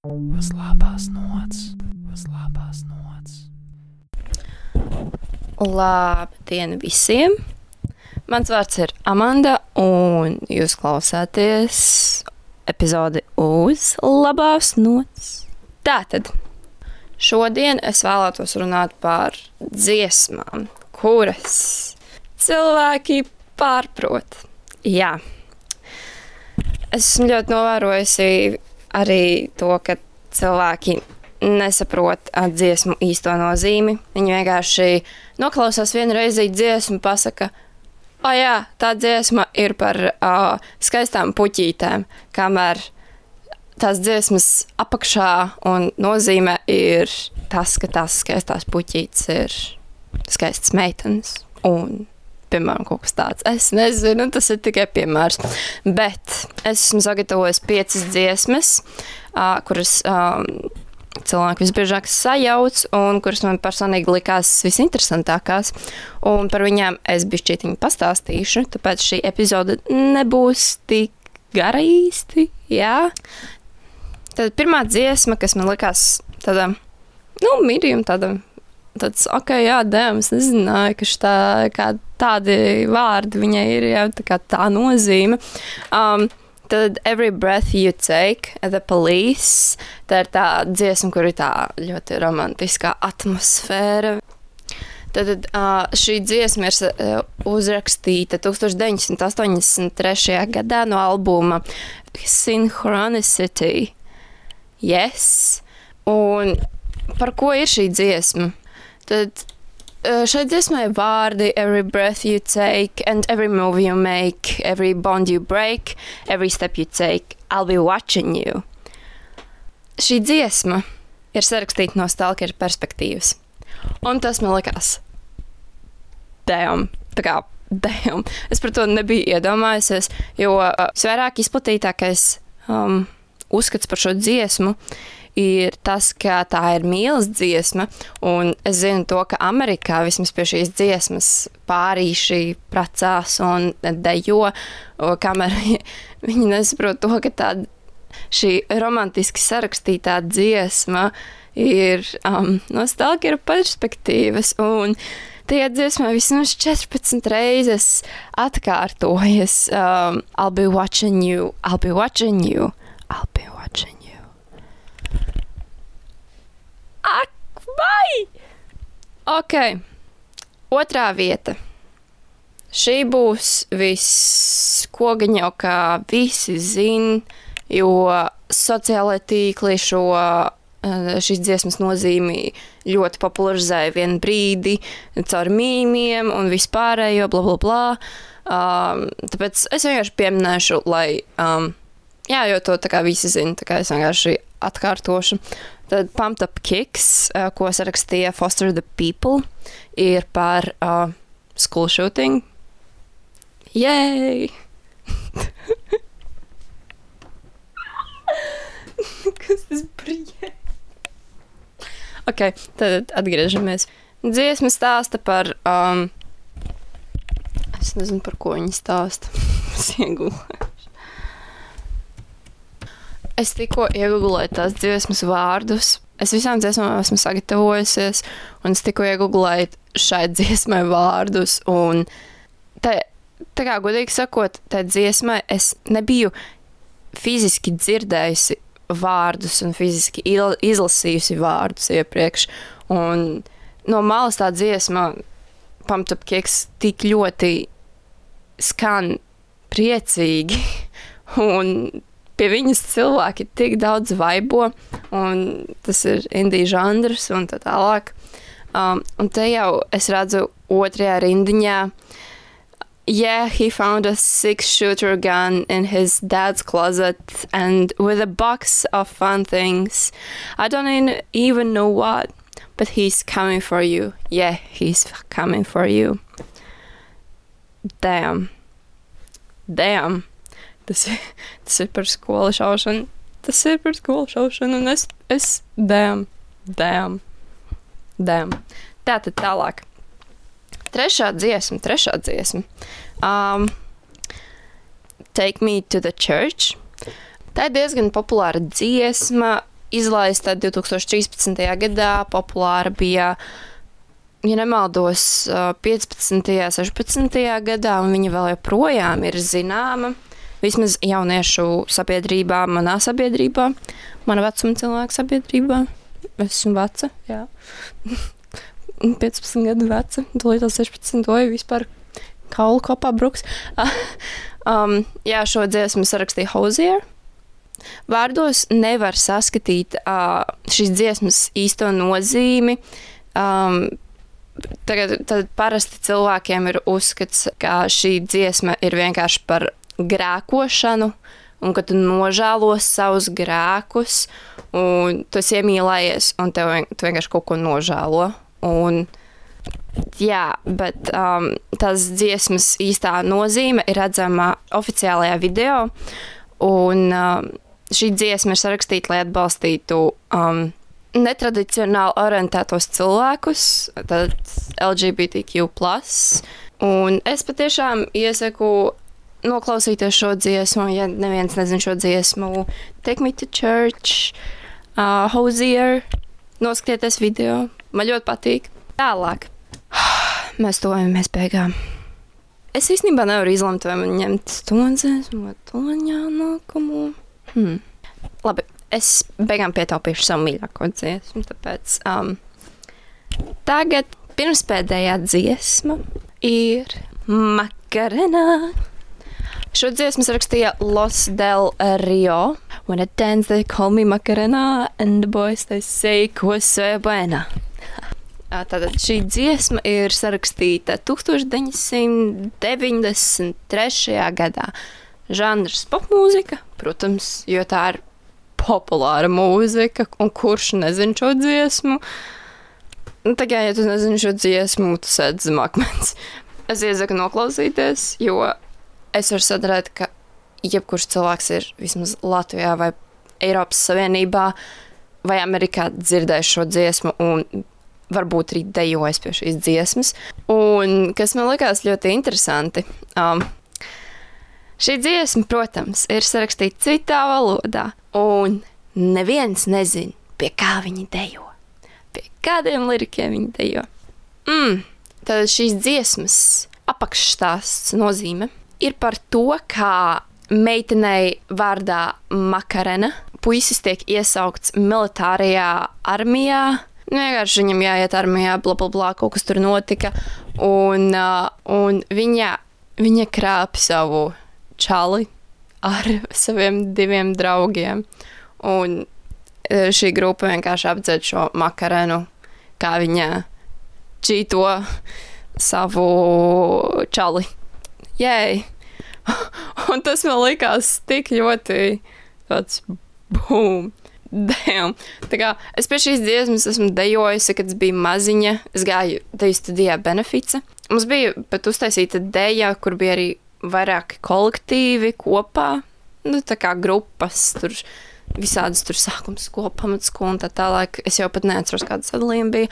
Uz labās nots. Labdien visiem! Mans vārds ir Amanda, un jūs klausāties epizodi uz labās nots. Tātad, šodien es vēlētos runāt par dziesmām, kuras cilvēki pārprot. Jā. Esmu ļoti novērojusi arī to, ka cilvēki nesaprot dziesmu īsto nozīmi. Viņi vienkārši noklausās vienu reizi dziesmu, pasaka, jā, tā dziesma ir par skaistām puķītēm, kamēr tās dziesmas apakšā un nozīme ir tas, ka tās skaistās puķītes ir skaistas meitenes un, piemēram, kaut kas tāds. Es nezinu, tas ir tikai piemērs. Bet es esmu sagatavojis 5 dziesmas, kuras cilvēki visbiežāk sajauc un kuras man personīgi likās visinteresantākās. Un par viņām es bišķītiņu pastāstīšu, tāpēc šī epizode nebūs tik gara īsti, jā. Tad pirmā dziesma, kas man likās tāda, medium tāds, es nezināju, ka tādi vārdi viņai ir, jā, tā nozīme. Tad Every Breath You Take, The Police, tā ir tā dziesma, kur ir tā ļoti romantiskā atmosfēra. Tad šī dziesma ir uzrakstīta 1983. gadā no albuma Synchronicity. Yes. Un par ko ir šī dziesma? Tad šai dziesmai vārdi Every breath you take and every move you make, every bond you break, every step you take, I'll be watching you. Šī dziesma ir sarakstīta no stalkera perspektīvas. Un tas man likās damn. Es par to nebiju iedomājusies, jo visvairāk izplatītākais uzskats par šo dziesmu ir tas, ka tā ir mīlas dziesma, un es zinu to, ka Amerikā vismaz pie šīs dziesmas pārīši precās un dejo, kamēr viņi nesaprot to, ka šī romantiski sarakstītā dziesma ir no stalkera perspektīvas, un tajā dziesmā vismaz 14 reizes atkārtojas I'll be watching you, I'll be watching you, I'll be watching you. Ak, vai! Ok, otrā vieta. Šī būs viss, ko gan jau kā visi zin, jo sociālai tīkli šīs dziesmas nozīmi ļoti popularizēja vienu brīdi caur mīmiem un vispārējo, bla, bla, bla. Tāpēc es vienkārši pieminēšu, lai, jo to tā kā visi zin, tā kā es vienkārši atkārtošu. Tad Pumped Up Kicks, ko sarakstīja Foster the People, ir par school shooting. Yay! Kas tas brīja? Ok, tad atgriežamies. Dziesma stāsta par... es nezinu, par ko viņi stāsta. Es iegulēju. Es tikko iegooglēju tās dziesmas vārdus. Es visām dziesmām esmu sagatavojusies, un es tikko iegooglēju šai dziesmai vārdus, un tā kā godīgi sakot, tā dziesmai es nebiju fiziski dzirdējusi vārdus un fiziski izlasījusi vārdus iepriekš, un no malas tā dziesma Pumped Up Kicks tik ļoti skan priecīgi, un pie viņas cilvēki tik daudz vaibo, un tas ir indie žanrs un tā tālāk. Un te jau es redzu otrajā rindiņā, yeah, he found a 6-shooter gun in his dad's closet and with a box of fun things. I don't even know what, but he's coming for you. Yeah, he's coming for you. Damn. Tas ir par skolu šaušanu. Un es damn. Tātad tālāk. Trešā dziesma. Take Me to the Church. Tā ir diezgan populāra dziesma. izlaista 2013. gadā, populāra bija, ja nemaldos, 15. 16. gadā, un viņa vēl joprojām ir zināma, vismaz jauniešu sabiedrībā, manā sabiedrībā, mana vecuma cilvēku sabiedrībā. Es esmu veca, jā. 15 gadu veca, tūlīt 16, vai vispār kaulu kopā bruks. Jā, šo dziesmu sarakstīja Hozier. Vārdos nevar saskatīt šīs dziesmas īsto nozīmi. Tad parasti cilvēkiem ir uzskats, ka šī dziesma ir vienkārši par grēkošanu, un ka tu nožēlo savus grēkus, un tu esi iemīlējies, un tu vienkārši kaut ko nožēlo. Un, jā, bet tās dziesmas īstā nozīme ir redzama oficiālajā video, un šī dziesma ir sarakstīta, lai atbalstītu netradicionāli orientētos cilvēkus, tad LGBTQ+. Un es patiešām iesaku noklausīties šo dziesmu, ja neviens nezin šo dziesmu. Take Me to Church, Hozier, noskatieties video. Man ļoti patīk. Tālāk. Mēs tojamies beigām. Es īstenībā nevaru izlemt, vai man ņemt to dziesmu vai to nākamo. Labi, es beigām pietaupīšu savu mīļāko dziesmu, tāpēc tagad pirmspēdējā dziesma ir Macarena. Šo dziesmu rakstīja Los Del Rio. When I dance, they call me Macarena, and the boys, they say, ko se buena. Tātad šī dziesma ir sarakstīta 1993. gadā. Žanrs popmūzika, protams, jo tā ir populāra mūzika, un kurš nezin šo dziesmu. Tagad, ja tu nezini šo dziesmu, tu sēd zem akmens. Es iesaku noklausīties, jo es varu sadarēt, ka jebkurš cilvēks ir vismaz Latvijā vai Eiropas Savienībā vai Amerikā dzirdējis šo dziesmu un varbūt arī dejojis pie šīs dziesmas. Un kas man likās ļoti interesanti, šī dziesma, protams, ir sarakstīta citā valodā, un neviens nezin, pie kā viņi dejo, pie kādiem lirikiem viņi dejo. Tad šīs dziesmas apakšstāsts nozīme ir par to, kā meitenei vārdā Macarena puisis tiek iesaukts militārajā armijā. Vienkārši viņam jāiet armijā, blablabla, kaut kas tur notika. Un viņa krāp savu čali ar saviem 2 draugiem. Un šī grupa vienkārši apdzēd šo Macarenu, kā viņa čīto savu čali. Jēj! Un tas man likās tik ļoti tāds boom! Damn. Tā kā es pie šīs dziesmas esmu dejojusi, kad es biju maziņa. Es gāju deju studijā Benefice. Mums bija pat uztaisīta deja, kur bija arī vairāki kolektīvi kopā. Tā kā grupas, tur visādas tur sākums skola, pamatskola un tā tālāk. Es jau pat neatceros, kāda sadalījuma bija.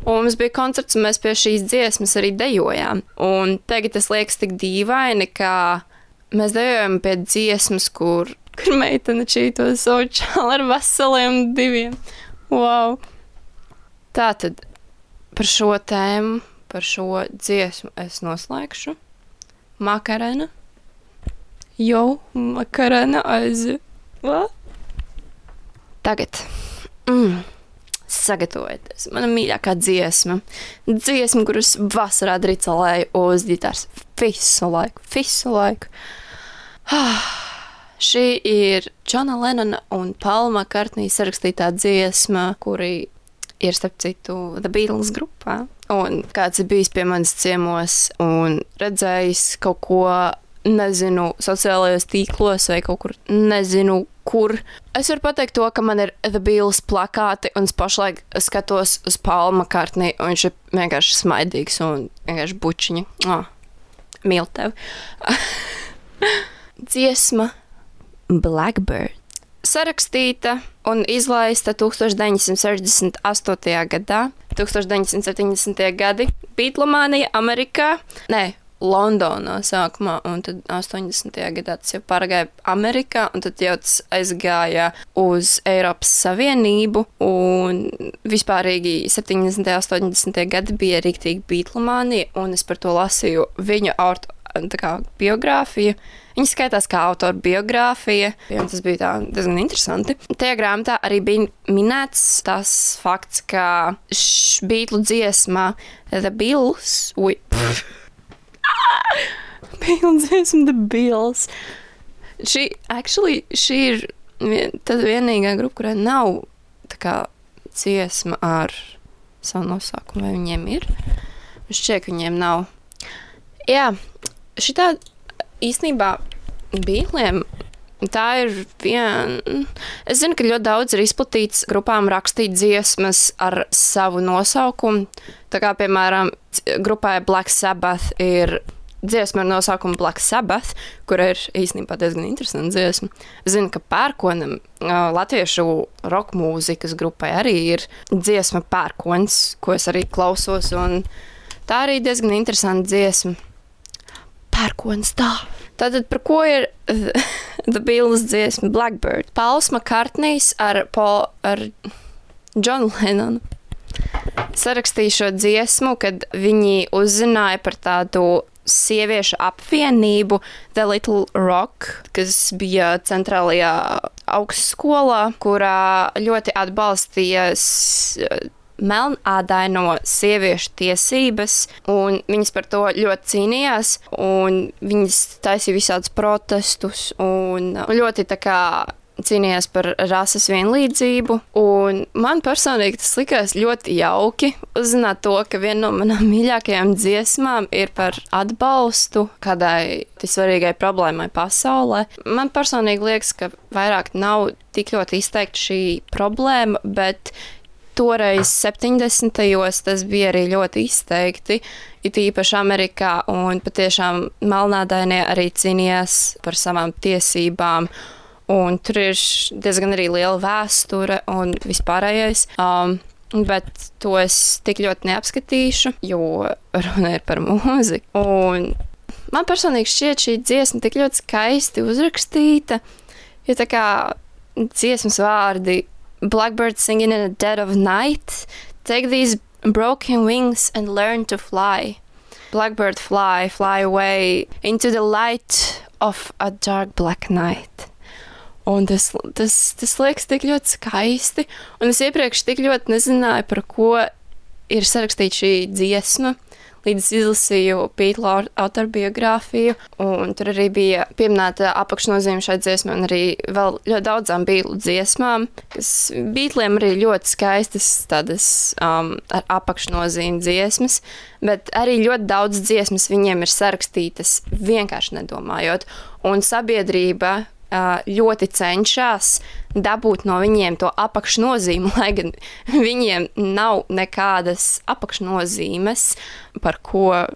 Un mums bija koncerts, un mēs pie šīs dziesmas arī dejojām. Un tagad tas liekas tik dīvaini, ka mēs dejojam pie dziesmas, kur meitene čīto savu čāli ar veseliem 2. Wow! Tātad par šo tēmu, par šo dziesmu es noslēgšu. Macarena. Jo, Macarena aiziet. Tagad. Sagatavojieties. Mana mīļākā dziesma. Dziesma, kuras vasarā dricelēju uz ģitāras visu laiku. Šī ir Džona Lennona un Paula McCartney sarakstītā dziesma, kuri ir, starp citu, The Beatles grupā. Un kāds ir bijis pie manis ciemos un redzējis kaut ko, nezinu, sociālajos tīklos vai kaut kur, nezinu, kur. Es varu pateikt to, ka man ir The Beatles plakāti, un es pašlaik skatos uz Paula McCartney, un viņš ir vienkārši smaidīgs un vienkārši bučiņa. Mīl tevi. Dziesma Blackbird. Sarakstīta un izlaista 1968. gadā, 1970. gadi, Beatlemānija Amerikā, Londonā sākumā, un tad 80. gadā tas jau pārgāja Amerikā, un tad jau tas aizgāja uz Eiropas Savienību, un vispārīgi 70. 80. gadi bija riktīgi beatlemānija, un es par to lasīju viņu biogrāfiju. Viņa skaitās kā autora biogrāfija, un tas bija diezgan interesanti. Tajā grāmatā arī bija minēts tas fakts, ka Beatlu dziesmā The Bills, Beatlu dziesma The Bills, šī ir tad vienīgā grupa, kurai nav tā kā dziesma ar savu nosaukumu, vai viņiem ir? Šķiet, ka viņiem nav. Jā, šitā īstenībā Beatliem tā ir es zinu, ka ļoti daudz ir izplatīts grupām rakstīt dziesmas ar savu nosaukumu. Tā kā, piemēram, grupai Black Sabbath ir dziesma ar nosaukumu Black Sabbath, kur ir īstenībā diezgan interesanta dziesma. Es zinu, ka Pērkonam, latviešu roka mūzikas grupai arī ir dziesma Pērkons, ko es arī klausos, un tā arī diezgan interesanta dziesma. Pērkons tā. Tātad par ko ir The Beatles dziesma Blackbird? Pauls Makartnijs ar Johnu Lennonu sarakstīja šo dziesmu, kad viņi uzzināja par tādu sieviešu apvienību The Little Rock, kas bija centrālajā augstskolā, kurā ļoti atbalstīja melnādaino sieviešu tiesības, un viņas par to ļoti cīnījās, un viņas taisīja visādus protestus, un ļoti tā kā cīnījās par rases vienlīdzību, un man personīgi tas likās ļoti jauki uzzināt to, ka viena no manām mīļākajām dziesmām ir par atbalstu kādai svarīgai problēmai pasaulē. Man personīgi liekas, ka vairāk nav tik ļoti izteikti šī problēma, bet toreiz 70. tas bija arī ļoti izteikti, it īpaši Amerikā, un patiešām melnādainie arī cīnījās par savām tiesībām, un tur ir diezgan arī liela vēsture un vispārējais, bet to es tik ļoti neapskatīšu, jo runa ir par mūziku. Un man personīgi šķiet šī dziesma tik ļoti skaisti uzrakstīta, jo tā kā dziesmas vārdi Blackbird singing in the dead of night. Take these broken wings and learn to fly. Blackbird fly, fly away into the light of a dark black night. Un tas liekas tik ļoti skaisti. Un es iepriekš tik ļoti nezināju, par ko ir sarakstīta šī dziesma, līdz izlasīju Beatlu autobiogrāfiju, un tur arī bija pieminēta apakšnozīme šai dziesmai, un arī vēl ļoti daudzām Beatlu dziesmām, kas Beatliem arī ļoti skaistas tādas ar apakšnozīmi dziesmas, bet arī ļoti daudz dziesmas viņiem ir sarakstītas vienkārši nedomājot, un sabiedrība ļoti cenšas dabūt no viņiem to apakšnozīmi, lai gan viņiem nav nekādas apakšnozīmes, par ko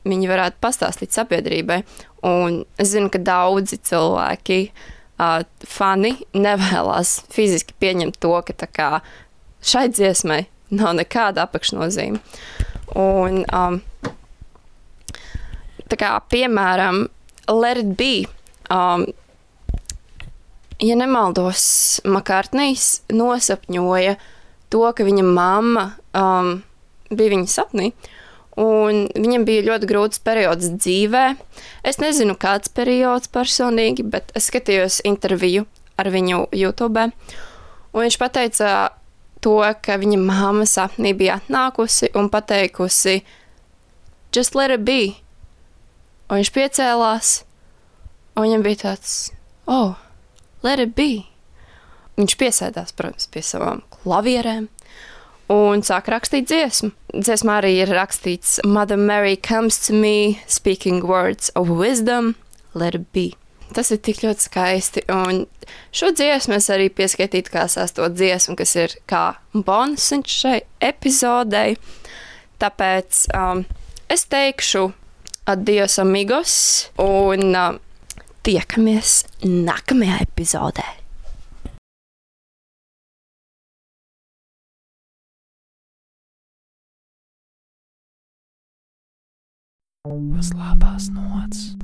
viņi varētu pastāstīt sabiedrībai. Un es zinu, ka daudzi cilvēki, fani, nevēlas fiziski pieņemt to, ka tā kā šai dziesmai nav nekāda apakšnozīme. Un tā kā, piemēram, Let It Be, ja nemaldos, Makartnijs nosapņoja to, ka viņa mamma bija viņa sapnī, un viņam bija ļoti grūts periods dzīvē. Es nezinu, kāds periods personīgi, bet es skatījos interviju ar viņu YouTube, un viņš pateica to, ka viņa mamma sapnī bija atnākusi un pateikusi Just let it be. Un viņš piecēlās, un viņam bija tāds, oh, let it be. Viņš piesēdās, protams, pie savām klavierēm un sāk rakstīt dziesmu. Dziesmā arī ir rakstīts Mother Mary comes to me, speaking words of wisdom, let it be. Tas ir tik ļoti skaisti, un šo dziesmu es arī pieskaitītu kā sesto dziesmu, kas ir kā bonusiņš šai epizodei. Tāpēc es teikšu adios amigos, un tiekamies nākamajā epizodē. Uz labās nots.